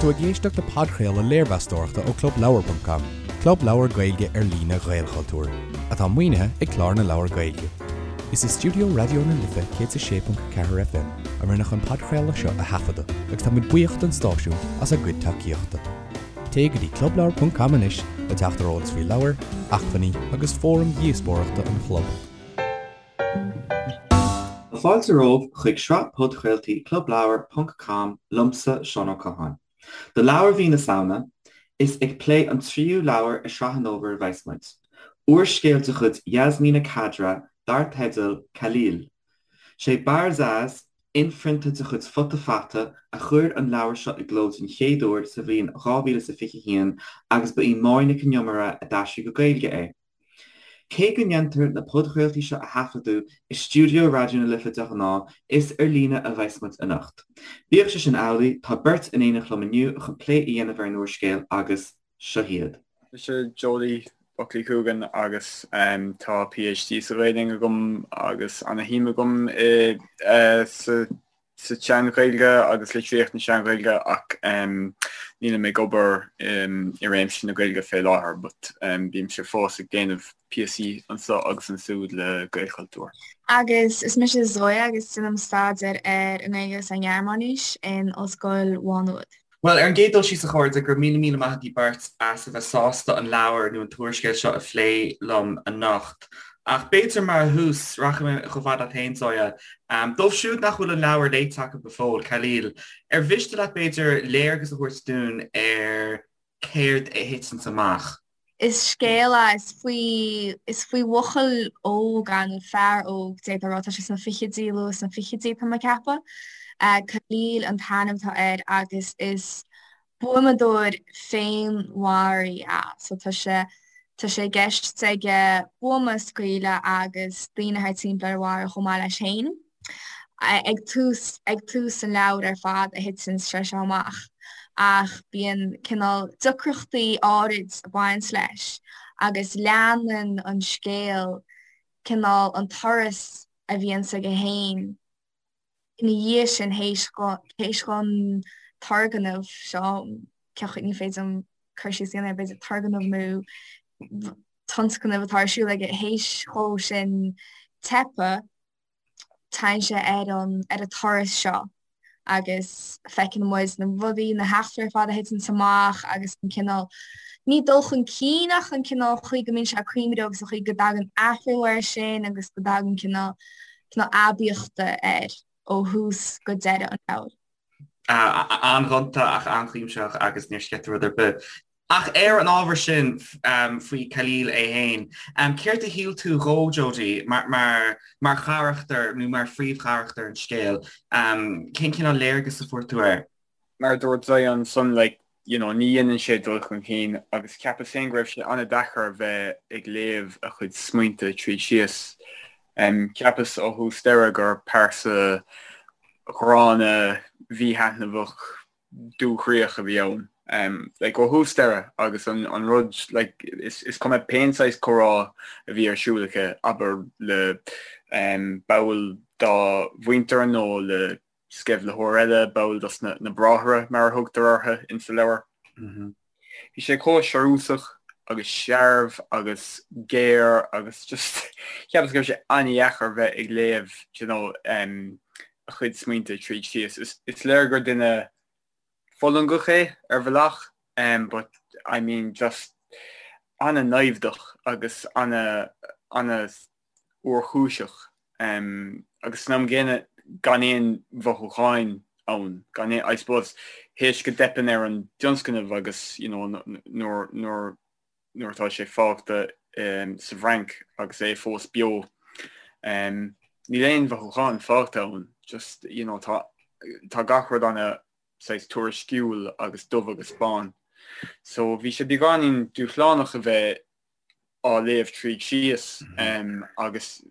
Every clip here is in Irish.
tú ag éisteacht le podchraoladh léirmheastóireachta ó ClubLeabhar.com, club leabhar Gaeilge ar líne Ghaelchultúir, atá maoinithe ag Clár na Leabhar Gaeilge. Is i stiúideo Raidió na Life 106.4 FM a rinneadh an podchraoladh seo a thaifeadadh agus tá muid buíoch don stáisiún as a gcuid tacaíochta. Téigh go dtí clubleabhar.com anois le teacht ar eolas faoi leabhair, acmhainní agus fóraim dhíospóireachta an chlub. Tá fáilte romhaibh chuig sraith podchraoltaí Clubleabhar ponc com liomsa, Seán Ó Catháin. Do leabhar mhí na Samhna, is ag plé an tríú leabhar i sraith an fhómhair a bheas muid. Úrscéal de chuid Yasmina Khadra dar teideal Khalil. Sé Barzaz, inphrionta de chuid Futa Fata, a chuir an leabhar seo i gcló den chéad uair sa bhliain 2021 agus ba í Máire Nic an Iomaire a d'aistrigh go Gaeilge é. Cé go ndéantar na podchraoltaí seo a thaifeadadh i stiúideo Raidió na Life de ghnáth, is ar líne a bheas muid anocht. Bíodh sé sin amhlaidh, tá beirt in éineacht liom inniu chun plé a dhéanamh ar an úrscéal agus seo hiad. Mise Jody Buckley Coogan agus tá PhD sa Ghaelainn agam agus ana-shuim agam i sa sa tSean-Ghaeilge agus litríocht na Sean-Ghaeilge ach nílim ag obair i réimse na Gaeilge fé láthair but bímse fós ag déanamh píosaí anso agus ansúd le Gaelchultúr. Agus is mise Zoya agus déanaim staidéar ar an nGaeilge agus ar an nGearmáinis in Ollscoil Mhá Nuad. Bhuel, ar an gcéad dul síos a chairde, go raibh míle míle maith agaibh beirt as a bheith sásta an leabhar nó an t-úrscéal seo a phlé liom anocht. Ach b'fhéidir mar thús, rachaidh mé chomh fada leat féin, Zoya. Dóibh siúd nach bhfuil an leabhar léite acu go fóill, Khalil, ar mhiste leat b'fhéidir léargas a thabhairt dúinn ar céard a thiteanns amach? Is scéal é, is faoi, is faoi bhuachaill óg é, nó fear óg, d'fhéadfá a rá, tá sé sna fichidí, luath sna fichidí tá mé ag ceapadh. Khalil an t-ainm atá air agus is buamadóir féinmharaí é. So tá sé, tá sé i gceist aige buama a scaoileadh agus daoine thart timpeall air a mharú chomh maith leis féin. Ag tús, ag tús an leabhair ar fad a thiteann sé seo amach ach bíonn cineál deacrachtaí áirid ag baint leis agus leanann an scéal cineál an turas a bhíonns aige féin ina dhiaidh sin théis théis don turgnamh seo, ní féidir liom cur síos a dhéanamh air, b'fhéidir turgnamh nó tionscnamh atá ar siúl aige théis dhó sin teipeadh. Téann sé ar an ar an turas seo agus feiceann muid na rudaí, na heachtraí ar fad a thiteanns amach agus an cineál, ní dul chun cinn ach an cineál chaoi go mbíonn sé ag cuimhneamh agus an chaoi go dtagann athrú air sin agus go dtagann cineál cineál aibíochta air ó thús go deireadh an leabhair. An-ghonta ach an-chuimsitheach agus níor sceith tú rud ar bith. Ach ar an ábhar sin faoi Khalil é féin, céard a shíl tú dhó, Jodie, mar mar charachtar nó mar phríomhcharachtar an scéil? Cén cineál léargas a fuair tú air? Mar a dúirt Zoya ansan, like, you know, ní dhéanann sé dul chun cinn agus cheapas féin go raibh sé an-deacair a bheith ag léamh a chuid smaointe tríd síos. Cheapas ó thús deireadh gur pearsa ghránna, mhíthaitneamhach, dúchroíoch a bhí ann. Like, ó thús deireadh agus an, an rud, like, is, is cuma pén saghas comhrá a bhí ar siúl aici, abair le um, ball dá mhuintir nó le sceimhlitheoir eile, ball dos na, na bráithre mar a thugtar orthu insa leabhar. Mm -hmm. Bhí sé chomh searúsach agus searbh agus géar agus just cheapas go raibh sé an-dheacair bheith ag léamh you know, um, a chuid smaointe tríd síos. Is, is léir gur duine fulangach é ar bhealach um, but I mean just an-naimhdeach agus ana ana fhuarchúiseach agus san am gcéanna gan aon mhothúcháin ann, gan aon, I suppose, théis go dteipeann ar an dtionscnamh agus you know nuair, nuair, nuair atá sé fágtha sa bhFrainc agus é fós beo, níl aon mhothúcháin fágtha ann, just you know tá, tá gach rud ana saghas tuairisciúil agus dubh agus bán. So bhí sé beagáinín dúshlánach a bheith á léamh tríd síos agus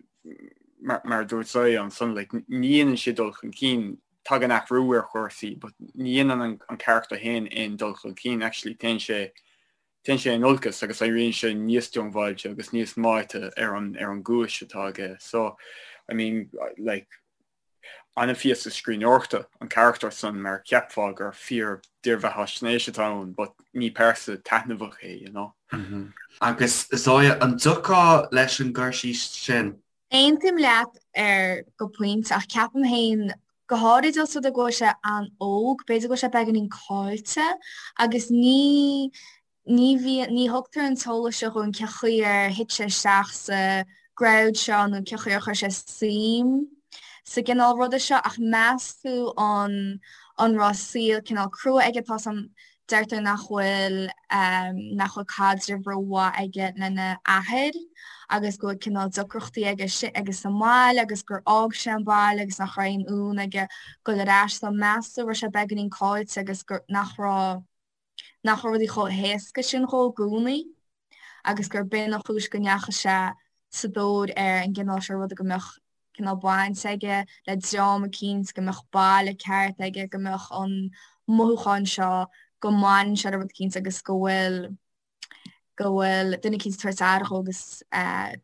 mar a dúirt Zoya ansan like ní dhéanann sé dul chun cinn, tagann athrú ar chúrsaí but ní dhéanann an carachtar féin aon dul chun cinn, actually téann sé téann sé in olcas agus éiríonn sé níos diongbháilte agus níos meáite ar an ar an gcúis atá aige. So I mean like. An-phíosa scríbhneoireachta an carachtar san mar cheapfá gur fíor dírbheathaisnéis atá ann but ní pearsa taitneamhach é, you know. Agus Zoya, an dtiocfá leis an gcur síos sin? Aontaím leat ar go pointe ach ceapaim féin, go háirid os rud é go bhfuil sé an-óg, b'fhéidir go bhfuil sé beagáinín caillte agus ní ní bhíonn, ní thugtar an t-eolas seo dhúinn cé chaoi ar thit sé isteach sa gcrowd seo nó cé chaoi ar chuir sé suim sa gcineál ruda seo ach meas tú an an raibh saol cineál crua aige tá san deirtear nach bhfuil nach bhfuil caidreamh rómhaith aige lena athair agus go bhfuil cineál deacrachtaí aige aige sa mbaile agus gur fhág sé an baile agus nach raibh aon fhonn aige dul ar ais so meas tú raibh sé beagáinín caillte agus gur nach raibh nach raibh rudaí chomh héasca sin dhó i gcónaí agus gur b'in an chúis go ndeachaigh sé sa dtóir ar an gcineál seo ruda, go mbeadh cineál baint aige le dream eicínt, go mbeadh baile ceart aige, go mbeadh an mothúchán seo go mbaineann sé le rud eicínt agus go bhfuil go bhfuil duine eicínt ag tabhairt aire dhó agus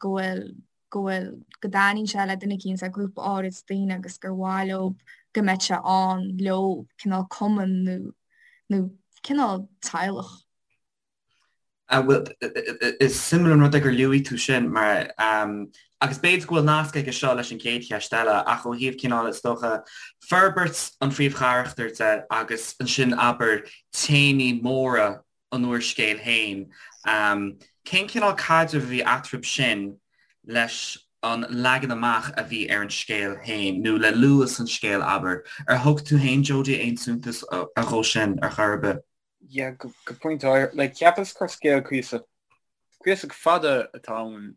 go bhfuil go bhfuil, go dtaitníonn sé le duine eicínt, le grúpa áirid daoine agus gur mhaith leo go mbeadh sé ann leo, cineál cumann nó, nó cineál teaghlach. Bhuel, is suimiúil an rud é gur luaigh tú sin mar, agus b'fhéidir go bhfuil nasc aige seo leis an gcéad cheist eile, ach ó thaobh cineál, is dócha, forbairt an phríomhcharachtair de agus ansin, abair, téamaí móra an úrscéil féin. Cén cineál caidrimh a bhí eatarthu sin leis an leagan amach a bhí ar an scéal féin, nó le luas an scéil, abair? Ar thug tú féin, Jody, aon suntas dhó sin ar chor ar bith? Yeah, go pointe áirithe. Like, cheapas gur scéal cuíosach, cuíosach fada atá ann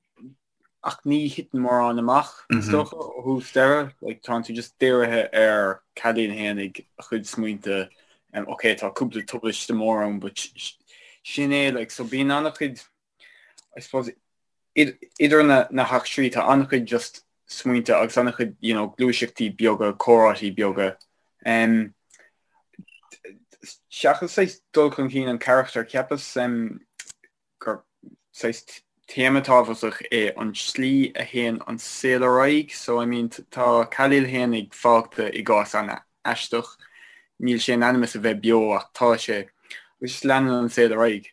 ach ní thiteann mórán amach, is dócha, ó thús deireadh. Like, tánn tú just dírithe ar Khalil fhéinig, a chuid smaointe. Um, ok, tá cúpla tubaiste mór ann, but sin é, like, so bíonn an-chuid, I suppose, idir na, na heachtraí, tá an-chuid just smaointe agus an-chuid, you know, gluaiseachtaí beaga, comhráití beaga. Um, seachas saghas dul chun cinn an charachtair, cheapas um, gur saghas téama tábhachtach é an tslí a théann an saol ar aghaidh. So, I mean, tá Khalil fhéinig fágtha i gcás an-aisteach. Níl sé in ainm is a bheith beo ach tá sé. Agus just leanann an saol ar aghaidh.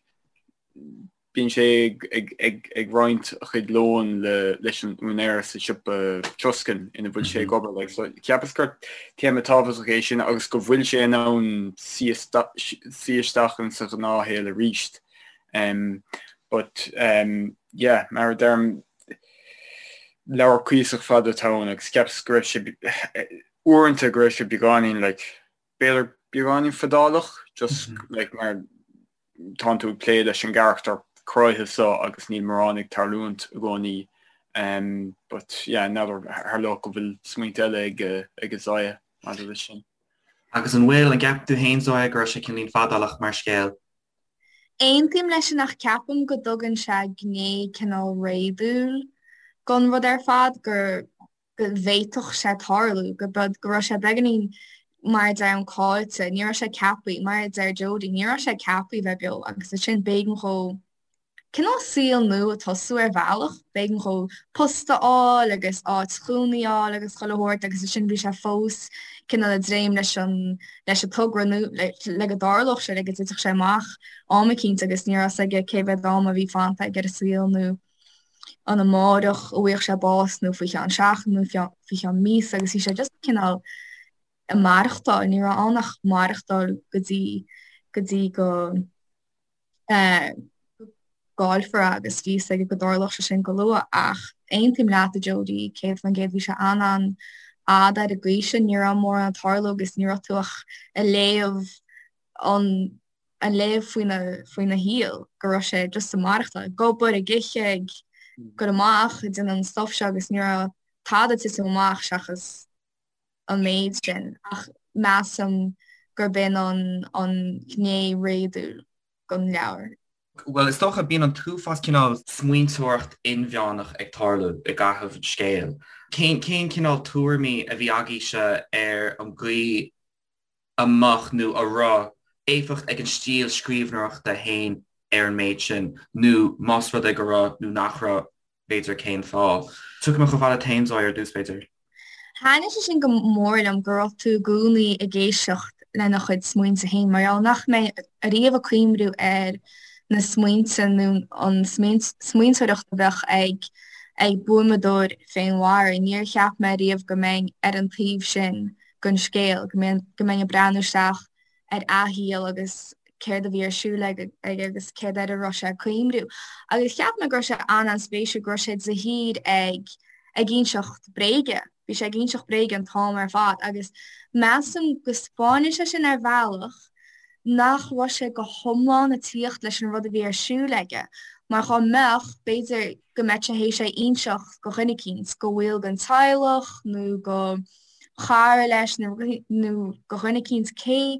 Bíonn sé ag, ag, ag roinnt a chuid lóin le, leis an úinéir sa siopa troscáin ina bhfuil sé ag obair. Like, so, cheapas gur téama tábhachtach é sin agus go bhfuil sé in ann suí isteach in sa ghnáthshaol arís. Um, but um, yeah, mar a deirim, leabhar cuíosach fada atá ann agus cheapas go raibh sé uaireanta go raibh sé beagáinín like, b'fhéidir beagáinín fadálach, just mm -hmm. like, mar tánn tú ag plé leis an gcarachtar cráite seo agus níl mórán ag tarlúint i gcónaí. Um, but yeah, n'fheadar tharlódh go bhfuil smaointe eile ag, ag Zoya maidir leis sin. Agus an bhfuil, an gceapann tú féin Zoya go raibh sé cineáilín fadálach mar scéal? Aontaím leis sin ach ceapaim go dtugann sé gné cineál réadúil gon rud ar fad, gur go bhféadfadh sé tarlú, go go raibh sé beagáinín mar a deirim caillte, ní raibh sé ceaptha, mar a deir Jody, ní raibh sé ceaptha bheith beo agus ansin b'éigean dhó cineál saol nua a tosú ar bhealach, b'éigean dhó post a fháil agus áit chónaí a fháil agus chuile shórt agus ansin bhí sé fós cineál ag dréim leis an leis an togra nó le go dtarlódh sé, le go dtitfeadh sé amach am eicínt agus ní raibh 'fhios aige cé mhéad am a bhí fanta aige ar an saol nó an amárach a bhfuigheadh sé bás nó faoi cheann seachtain nó faoi cheann míosa agus bhí sé just cineál ag maireachtáil, ní raibh ann ach maireachtáil go dtí go dtí go gcaillfear é agus bhí 'fhios aige go dtarlódh sé sin go luath ach aontaím leat a Jody, 100% bhí sé an-an-fhada ar an gcaoi sin, ní raibh mórán ag tarlú agus ní raibh tú ach ag léamh an ag léamh faoina faoina shaol go raibh sé just ag maireachtáil, ag obair, ag ithe, ag goil amach, ag déanamh an stuff seo agus ní raibh tada ag titim amach seachas an méid sin ach measaim gurb in an an ghné réadúil den leabhar. Bhuel, is dócha, bíonn an t-uafás cineál smaointeoireacht inmheánach ag tarlú i gcaitheamh an scéil. Cén cén cineál tuairimí a bhí agaibhse ar an gcaoi a mbeadh nó a raibh éifeacht ag an stíl scríbhneoireachta féin ar an méid sin, nó más rud é go raibh nó nach raibh, b'fhéidir cén fáth? Tiocfaidh mé chomh fada leat féin, Zoya, ar dtús, b'fhéidir. Thaitnigh sé sin go mór liom go raibh tú i gcónaí ag éisteacht lena chuid smaointe féin mar gheall nach mbeinn ariamh ag cuimhniú ar na smaointe nó an smaointeoireacht a bheadh ag ag buamadóir féinmharaithe. Níor cheap mé ariamh go mbeinn ar an taobh sin den scéal, go mbeinn go mbeinn ag breathnú isteach ar a shaol agus céard a bhí ar siúl aige agus céard air a raibh sé ag cuimhniú. Agus cheap mé go raibh sé an-an-spéisiúil go raibh sé de shíor ag ag inseacht bréige. Bhí sé ag inseacht bréige an t-am ar fad agus measaim go 'spáineann sé sin ar bhealach nach raibh sé go hiomlán ag tíocht leis an rud a bhí ar siúl aige mar dhá mbeadh, b'fhéidir go mbeadh sé théis é a inseacht go dhuine eicínt, go bhaill den teaghlach nó go chara leis nó go dhuine eicínt cé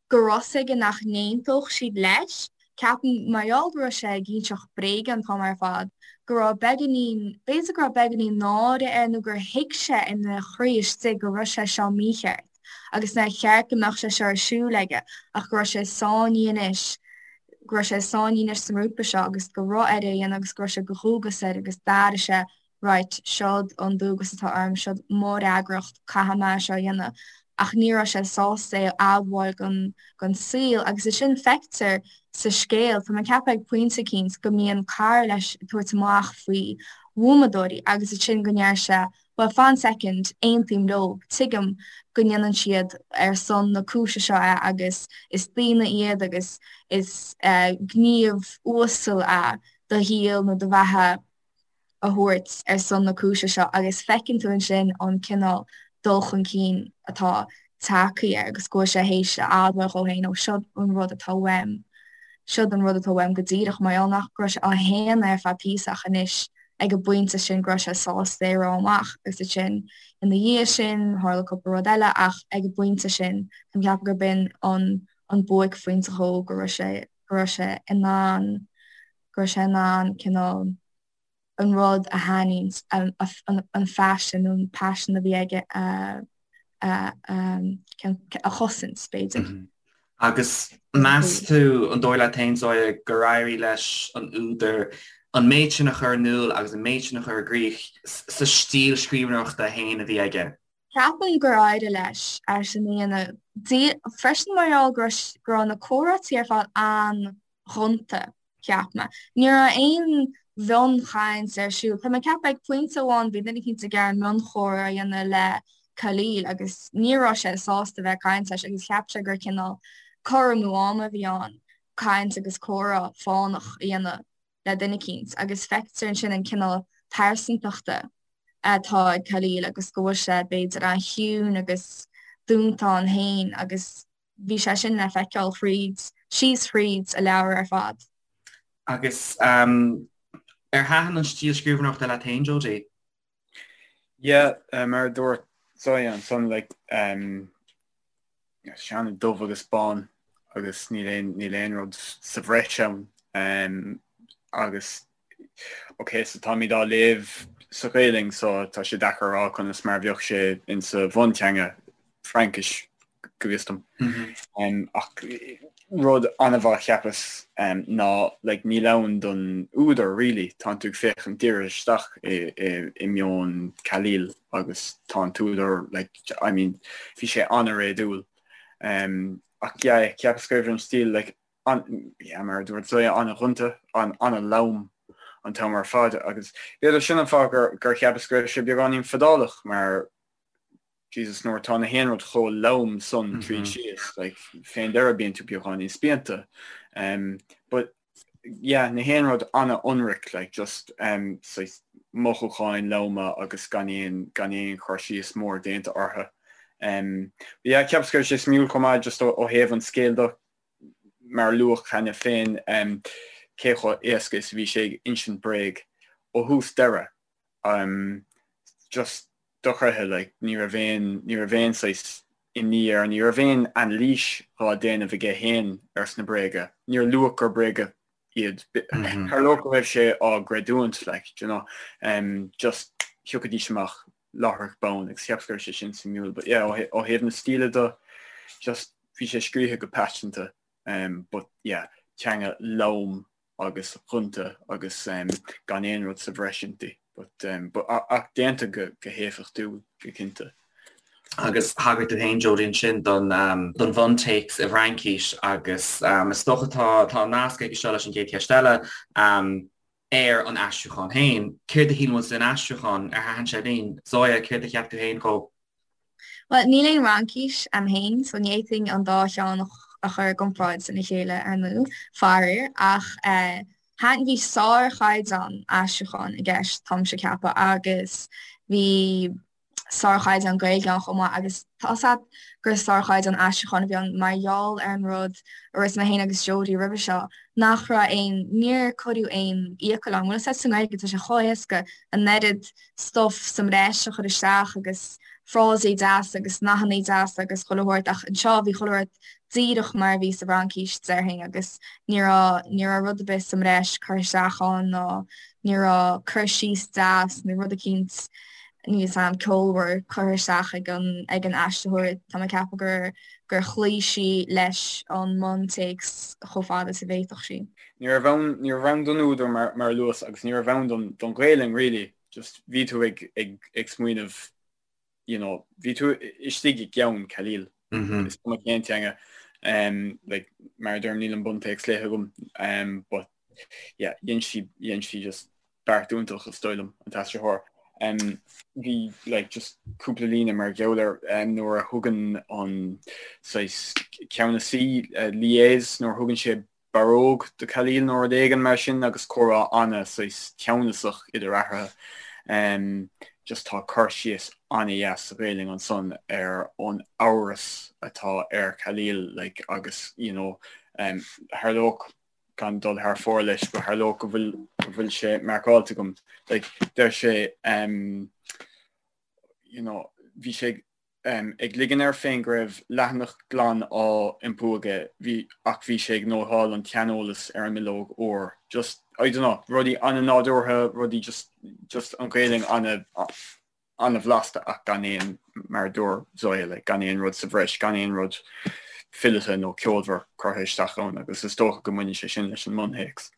go raibh 's aige nach n-aontódh siad leis. Ceapaim, mar gheall go raibh sé ag inseacht bréige an t-am ar fad, go raibh beagáinín, b'fhéidir go raibh beagáinín náire air nó gur thuig sé ina chroí istigh go raibh sé seo mícheart agus nár cheart go mbeadh sé seo ar siúl aige ach go raibh sé sáinnithe anois, go raibh sé sáinnithe anois sa ngrúpa seo agus go raibh air é a dhéanamh agus go raibh sé de dhualgas air agus d'airigh sé right, seod an dualgas atá orm, seod mo fhreagracht, caithfidh mé seo a dhéanamh. Ach ní raibh sé sásta é a admháil don, don saol agus é sin feictear sa scéal, tá mé ag ceapadh ag pointe eicínt go mbíonn cara leis ag tabhairt amach faoi bhuamadóirí agus ansin go ndeir sé bhuel fan soicind, aontaím leo, tuigim go ndéanann siad ar son na cúise seo é agus is daoine iad agus is gníomh uasal é do shaol nó do bheatha a thabhairt ar son na cúise seo agus feiceann tú ansin an cineál dul chun cinn atá tagtha air agus go bhfuil sé théis a admháil dhó féin, ó seod an rud atá uaim, seod an rud atá uaim go díreach mar gheall nach raibh sé á shéanadh ar feadh píosa ach anois ag an bpointe sin go raibh sé sásta é a rá amach agus ansin ina dhiaidh sin tharla cúpla rud eile ach ag an bpointe sin tá mé ag ceapadh gurb in an an buaicphointe dhó go raibh sé go raibh sé in ann go raibh sé in ann cineál an rud a shainaithint, an phaisean nó an paisean a bhí aige a a chosaint, b'fhéidir. Agus meas tú, an dóigh leat féin, Zoya, gur éirigh leis an údar an méid sin a chur in iúl agus an méid sin a chur i gcrích sa stíl scríbhneoireachta féin a bhí aige? Ceapaim gur éirigh leis é sin a dhéanamh. Freisin mar gheall go raibh na comhráití ar fad an-ghonta. cheap mé. Ní raibh aon mhionchaint ar siúl. Tá mé ag ceapadh ag pointe amháin bhí duine eicínt ag iarraidh mionchomhrá a dhéanamh le Khalil agus ní raibh sé sásta bheith ag caint leis agus cheap sé gur cineál cur amú ama a bhí ann caint agus comhrá fánach a dhéanamh le duine eicínt agus feictear ansin an cineál pearsantachta atá ag Khalil agus go bhfuil sé b'fhéidir an-chiúin agus dúnta ann féin agus Bhí sé sin le feiceáil thríd, síos thríd an leabhar ar fad. Agus ar thaitin an stíl scríbhneoireachta leat féin, Jody? Yeah, mar a dúirt Zoya ansan, like, um, sé an-dubh agus bán agus níl aon, níl aon rud sa bhreis ann. Um, agus Ok, so táimid á léamh sa Ghaelainn so tá sé deacair a rá conas mar a bheadh sé insa bhunteanga, Fraincis, go bhfios dom. Ach rud an-mhaith cheapas ná like níl ann don údar really, tánn tú ag féachaint díreach isteach i meon Khalil agus tá an t-údar like I mean bhí sé an-réadúil. Ach yeah, cheapas go raibh an stíl like an, yeah, mar a dúirt Zoya, an-ghonta, an-lom an t-am ar fad agus b'fhéidir sin an fáth gur, gur cheapas go raibh sé beagáinín fadálach mar Jesus nuair atá na haon rud chomh lom san tríd síos, like, fén deireadh bíonn tú beagáinín spíonta. Um, but yeah, na haon rud an-ionraic, like, just um, saghas mothúcháin loma agus gan aon, gan aon chur síos mór déanta orthu. Um, but yeah, cheapas go raibh sé suimiúil chomh maith just ó, ó thaobh an scéil de, mar a luadh cheana féin, cé chomh éasca is a bhí sé ag insint bréag ó thús deireadh. Just dochreidthe, like, ní raibh aon, ní raibh aon saghas imní air, ní raibh aon anailís dhá déanamh aige féin ar sna bréaga. Níor luadh gur bréaga iad. Tharlódh go raibh sé á gcreidiúint, like, do you know, just thiocfaidís amach láithreach bonn agus cheapas go raibh sé sin suimiúil but yeah ó thaobh na stíle de just bhí sé scríofa go paiseanta but yeah teanga lom agus ghonta agus gan aon rud sa bhreis inti. But um, but ach déanta go go héifeachtúil go cinnte. Agus thagair tú féin, Jodie, ansin don um, don bhuntéacs i bhFraincis agus um, is dócha tá tá an nasc aige seo leis an gcéad cheist eile um, ar an aistriúchán féin. Céard a shíl muid den aistriúchán? Ar thaitin sé linn? Zoya, céard a cheap tú féin dhó? Bhuel, níl aon Fhraincis a'm féin, so ní fhéadfainn an dá cheann a chur i gcomparáid lena chéile, ar ndóigh, faraor, ach thaitin, bhí sárchaighdeán aistriúcháin i gceist, táimse ag ceapadh, agus bhí sárchaighdeán Gaeilge ann chomh maith, agus tá's a'd gur sárchaighdeán aistriúcháin a bhí ann mar gheall ar an rud a dúirt mé féin agus Jodie roimhe seo, nach raibh aon, níor cuireadh aon fhiacail ann. Bhfuil 'fhios a'd sa nGaeilge tá sé chomh héasca an oiread stuff sa mbreis a chur isteach agus frásaí deasa agus nathannaí deasa agus chuile shórt ach anseo bhí chuile shórt díreach mar a bhí sa bhFraincis déarfainn agus ní raibh ní raibh rud ar bith sa mbreis curtha isteach ann ná ní raibh cur síos deas nó rud eicínt níl 'fhios a'm ceolmhar curtha isteach ag an ag an aistritheoir. Tá mé ag ceapadh gur gur chloígh sí leis an mbuntéacs chomh fada is a bhféadfadh sí. Ní raibh ann, ní raibh ann don údar mar, mar a luas agus ní raibh ann don, don Ghaelainn really, just bhí tú ag, ag, ag smaoineamh, you know, bhí tú istigh i gceann Khalil, is cuma cén teanga, um, like, mar a deirim níl an buntéacs léite agam, um, but yeah, dhein sí, dhein sí just beart iontach is dóigh liom, an t-aistritheoir. Um, bhí like, just cúpla líne mar gheall air um, nuair a thugann an saghas ceannasaí uh, Lyes, nuair a thugann sé barróg do Khalil nó rud éigin mar sin agus comhrá ana saghas teannasach idir eatarthu. Um, just tá cur síos ana-dheas sa Ghaelainn ansan ar an amhras atá ar Khalil like, agus you know, um, tharlódh gan dul thar fóir leis, but tharlódh go bhfuil go bhfuil sé marcáilte agam. Like, deir sé um, you know, bhí sé um, ag ligean air féin go raibh leathanach glan á iompú aige, bhí, ach bhí sé ag nótáil an tseaneolais ar an mbileog úr. Just, I don't know, rudaí an-nádúrtha, rudaí just, just an Ghaelainn ana, an-bhlasta ach gan aon, mar a dúirt Zoya, like, gan aon rud sa bhreis, gan aon rud fileata nó ceolmhar curtha isteach ann agus is dócha go mbaineann sé sin leis an mbuntéacs.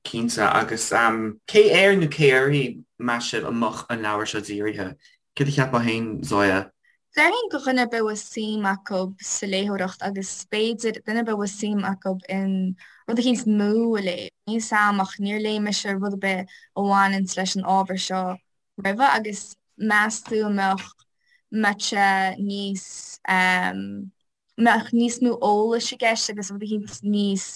Cinnte, agus cé air nó cé uirthi, meas sibh, a mbeadh an leabhar seo dírithe? Céard a cheapfá féin, Zoya? Déarfainn do dhuine ar bith a bhfuil suim acu sa léitheoireacht agus b'fhéidir duine ar bith a bhfuil suim acu in rud eicínt nua a léamh. Níl 'fhios a'm ach níor léigh mise rud ar bith a bhaineanns leis an ábhar seo roimhe agus meas tú an mbeadh mbeadh sé níos mbeadh níos mó eolais i gceist agus rud eicínt níos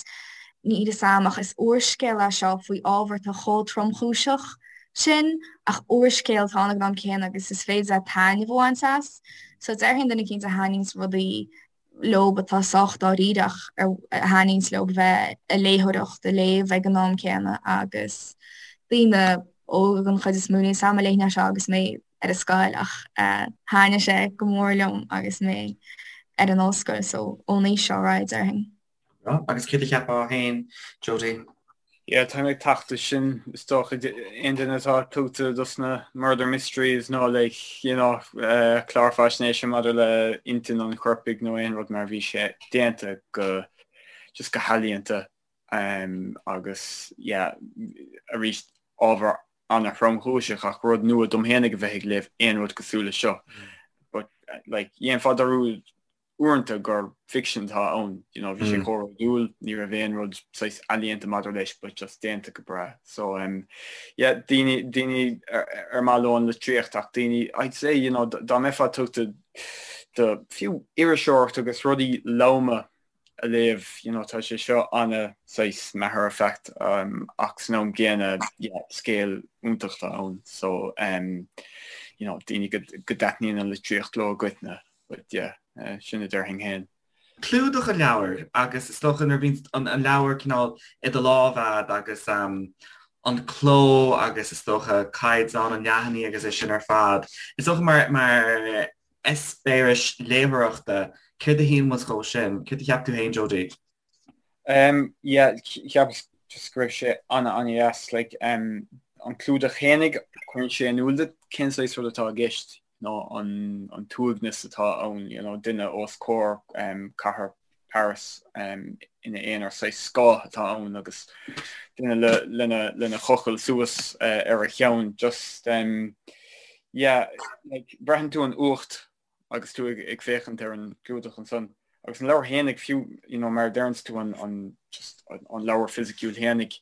níl 'fhios a'm ach is úrscéal é seo faoi ábhar atá chomh tromchúiseach sin ach úrscéal atá ann ag an am céanna agus is féidir leat taitneamh a bhaint as. So déarfainn duine eicínt a thaitníonns rudaí leob atá sách dáiríre ach a thaitníonns leob a bheith ag léitheoireacht, ag léamh ag an am céanna agus daoine óga den chuid is mó. Níl 'fhios a'm an léifinn é seo agus mé ar an scoil ach thaitnigh sé go mór liom agus mé ar an ollscoil so ón aois seo ar aghaidh déarfainn. Agus céard a cheapfá féin, Jodie? Yeah, táim ag teacht leis sin, is dócha, aon duine atá tugtha dos na murder mysteries nó like, you know, uh, clár faisnéise maidir le intinn an choirpigh nó aon rud mar bhí sé déanta go just go healaíonta um, agus yeah, arís ábhar ana-thromchúiseach ach rud nua dom fhéinig a bheith ag léamh aon rud cosúil leis seo. Mm. But like, dhéanfá dearúd uaireanta gur ficsean atá ann, you know, bhí sé chomh réadúil, ní raibh aon rud saghas ealaíonta maidir leis but just déanta go breá. So um, yeah, daoine, daoine ar, ar maith leo an litríocht ach daoine, I'd say, you know, dá mbeifeá tugtha do fiú iriseoireacht agus rudaí loma a léamh, you know, tá sé seo ana saghas matter of fact um, ach san am gcéanna, yeah, scéal iontach atá ann. So um, you know, daoine go, go dtaitníonn an litríocht leo i gcoitinne. But yeah, sin a déarfainn féin. Clúdach an leabhair agus is dócha nuair a bhíonn an leabhar cineál i do lámh a'd agus an cló agus is dócha caighdeán an leathanaigh agus é sin ar fad, is dócha mar mar eispéireas léitheoireachta, céard a shíl muid dhó sin? Céard a cheap tú féin, Jodie? Um, yeah, cheapas just go raibh sé ana ana dheas, like, um, an clúdach fhéinig, cuireann sé in iúl duit cén saghas rud atá i gceist, nó an, an t-uaigneas atá ann, you know, duine os comhair um, cathair. Paris ina aonar, saghas scáth atá ann agus duine lena lena chochall suas ar a cheann just yeah like braitheann tú an fhuacht agus tú ag féachaint ar an gclúdach ansan. Agus an leabhar fhéinig fiú, you know, mar a deireanns tú an, an, just an leabhar fisiciúil fhéinig,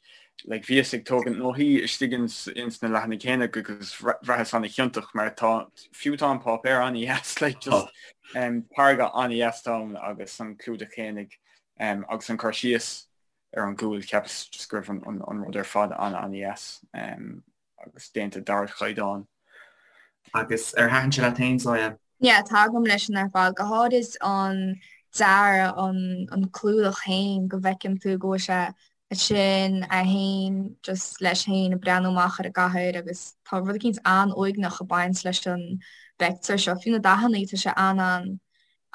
like bhíos ag tógaint nótaí istigh ins, ins na leathanaigh fhéinig agus bhraitheas ana-chiontach mar tá, fiú tá an páipéar ana-dheas, like just um, táirge ana-dheas atá ann agus an clúdach fhéinig um, agus an cur síos ar an gcúl, cheapas just go raibh an, an, an rud ar fad ana-ana-dheas. Um, agus déanta d'ardchaighdeán. Agus ar thaitin sé leat féin, Zoya? Yeah, tagaim leis sin ar fad, go háirid an dearadh, an an clúdach féin, go bhfeiceann tú go bhfuil sé ansin é féin just leis féin ag breathnú amach ar an gcathair agus tá rud eicínt an-uaigneach ag baint leis an bpictiúr seo. Fiú na dathanna, tá sé an-an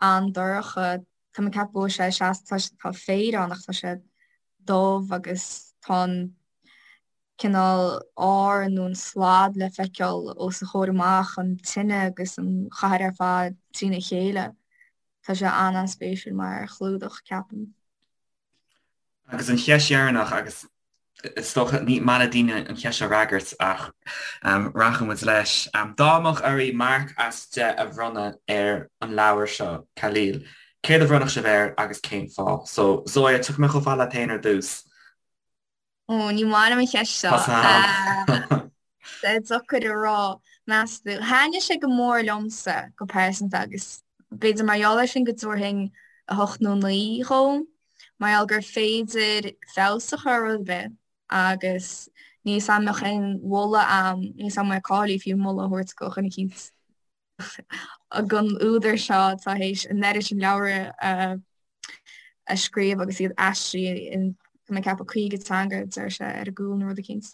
an-dorcha. Tá mé ag ceapadh go bhfuil sé seasta, tá féar ann ach tá sé dubh agus tá an cineál ár nó an slad le feiceáil os a chomhair amach, an tine agus an chathair ar fad trína chéile. Tá sé an-an-spéisiúil mar chlúdach, ceapaim. Agus an cheist dheireanach, agus is dócha ní maith le daoine an cheist seo a fhreagairt ach rachaidh muid leis. Dá mbeadh oraibh marc as 10 a bhronnadh ar an leabhar seo, Khalil, céard a bhronnfadh sibh air agus cén fáth? So, Zoya, tiocfaidh mé chomh fada leat féin ar dtús. Ó, ní maith liom an cheist seo. Tá deacair a rá, meas tú. Thaitnigh sé go mór liomsa go pearsanta agus b'fhéidir mar gheall air sin go dtabharfainn 8 nó 9 dhó, mar gheall gur féidir feabhas a chur ar rud ar bith agus níl 'fhios a'm an mbeadh aon mholadh a'm, níl 'fhios a'm an mbeidh cáilithe fiú moladh a thabhairt do dhuine eicínt. Don údar seo atá théis an oiread sin leabhar a scríobh agus iad aistrithe in tá mé ag ceapadh 50 teanga deir sé ar an gcúl nó rud eicínt.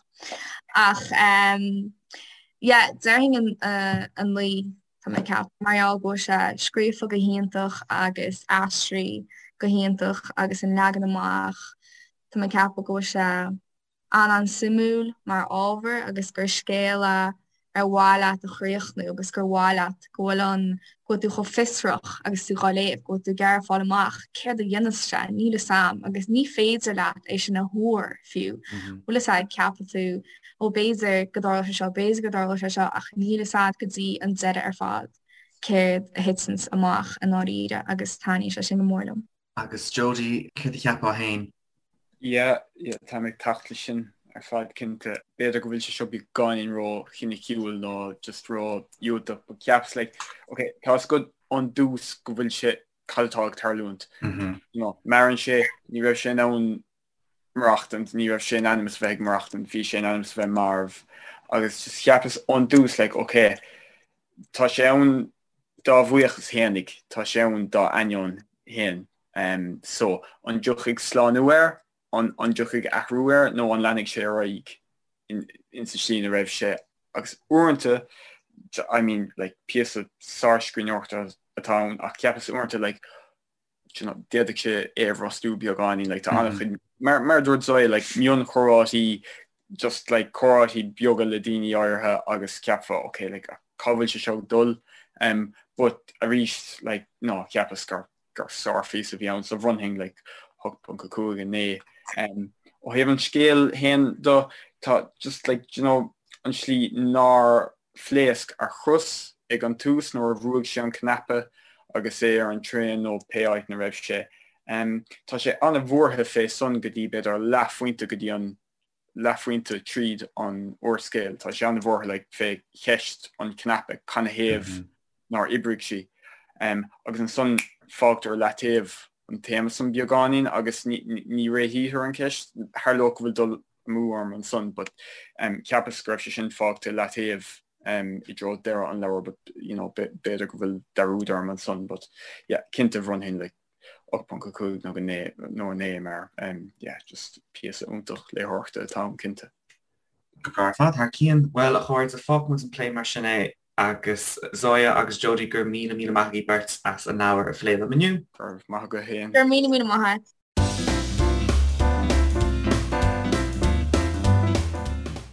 Ach yeah déarfainn an 9 tá mé ag ceapadh mar gheall go bhfuil sé scríofa go hiontach agus aistrithe go hiontach agus an leagan amach tá mé ag ceapadh go bhfuil sé an-an-suimiúil mar ábhar agus gur scéal é ar mhaith leat a chríochnú agus gur mhaith leat go bhfuil an, go bhfuil tú chomh fiosrach agus tú dhá léamh, go bhfuil tú ag iarraidh fáil amach céard a dhéanfas sé, níl fhios a'm agus ní féidir leat é sin a thuar fiú. Bhfuil fhios a'd, ceapann tú ó b'fhéidir go dtarlóidh sé seo, b'fhéidir go dtarlóidh sé seo ach níl fhios a'd go dtí an deireadh ar fad céard a thiteanns amach i ndáiríre agus taitníonn sé sin go mór liom. Agus Jody, céard a cheapfá féin? Yeah, yeah, táim ag teacht leis sin ar fad cinnte. B'fhéidir go bhfuil sé seo beagáinín ró-chiniciúil nó just ró-dhiúltach but cheapas like, ok, tá fhios agat ón dtús go bhfuil sé, cad atá ag tarlúint. You know, maireann sé, ní raibh sé in ann maireachtaint, ní raibh sé in ainm is a bheith ag maireachtaint, bhí sé in ainm is a bheith marbh agus just cheapas ón dtús like, ok, tá sé ann dá bhuíochas fhéinig, tá sé ann dá ainneoin fhéin. So, an dtiocfaidh slánú air, an dtiocfaidh athrú air nó an leanfaidh sé ar aghaidh insa tslí ina raibh sé? Agus uaireanta, I mean, like, píosa sárscríbhneoireachta atá ann ach cheapas uaireanta, like, you know, d'fhéadfadh sé é a bhrostú beagáinín, like, tá an-chuid, mar, mar a dúirt Zoya, like, mionchomhráití, just, like, comhráití beaga le daoine áirithe agus cheapfá, ok, like, cá bhfuil sé seo ag dul? Um, but arís, like, no, cheapas gur, gur sárphíosa a bhí ann, so bhronnfainn, like, 8.5, 9. Um, ó thaobh an scéil féin de, tá just, like, you know, an slí nár phléasc a chros ag an tús nuair a bhrúigh sé an cnaipe agus é ar an traein nó pé áit 'na raibh sé. Tá sé an-bhuartha fé san go dtí b'fhéidir leathphointe go dtí an leathphointe tríd an úrscéal. Tá sé an-bhuartha like fé cheist an chnaipe, canathaobh nár oibrigh sí. Agus ansan fágtar i leataobh an téama san beagáinín agus ní réitítear an cheist. Tharlódh go bhfuil dul amú orm ansan but cheapas go raibh sé sin fágtha i leataobh i dtreo deireadh an leabhair but you know b'fhéidir go bhfuil dearúd orm ansan but yeah cinnte bhronnfainn like 8.5 nó go 9 nó 9 mar yeah just píosa iontach léitheoireachta atá ann cinnte. Go breá ar fad, thar cionn. Bhuel, a chairde, fágfaidh muid an plé mar sin é agus Zoya agus Jody, go raibh míle míle maith agaibh beirt as an leabhar a phlé liom inniu. Go raibh maith agat féin. Go raibh míle míle maith agat.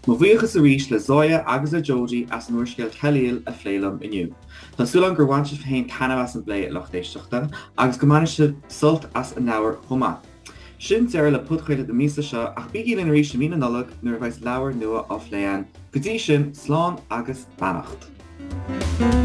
Mo bhuíochas arís le Zoya agus le Jodie as an úrscéal Khalil a phlé liom inniu. Tá súil agam gur bhain sibh féin taitneamh as an bplé, a lucht éisteachta, agus go mbainfidh sibh sult as an leabhar chomh maith. Sin deireadh le podchraoladh na míosa seo ach bígí linn arís i mí na Nollag nuair a bheas leabhar nua á phlé againn. Go dtí sin, slán agus beannacht.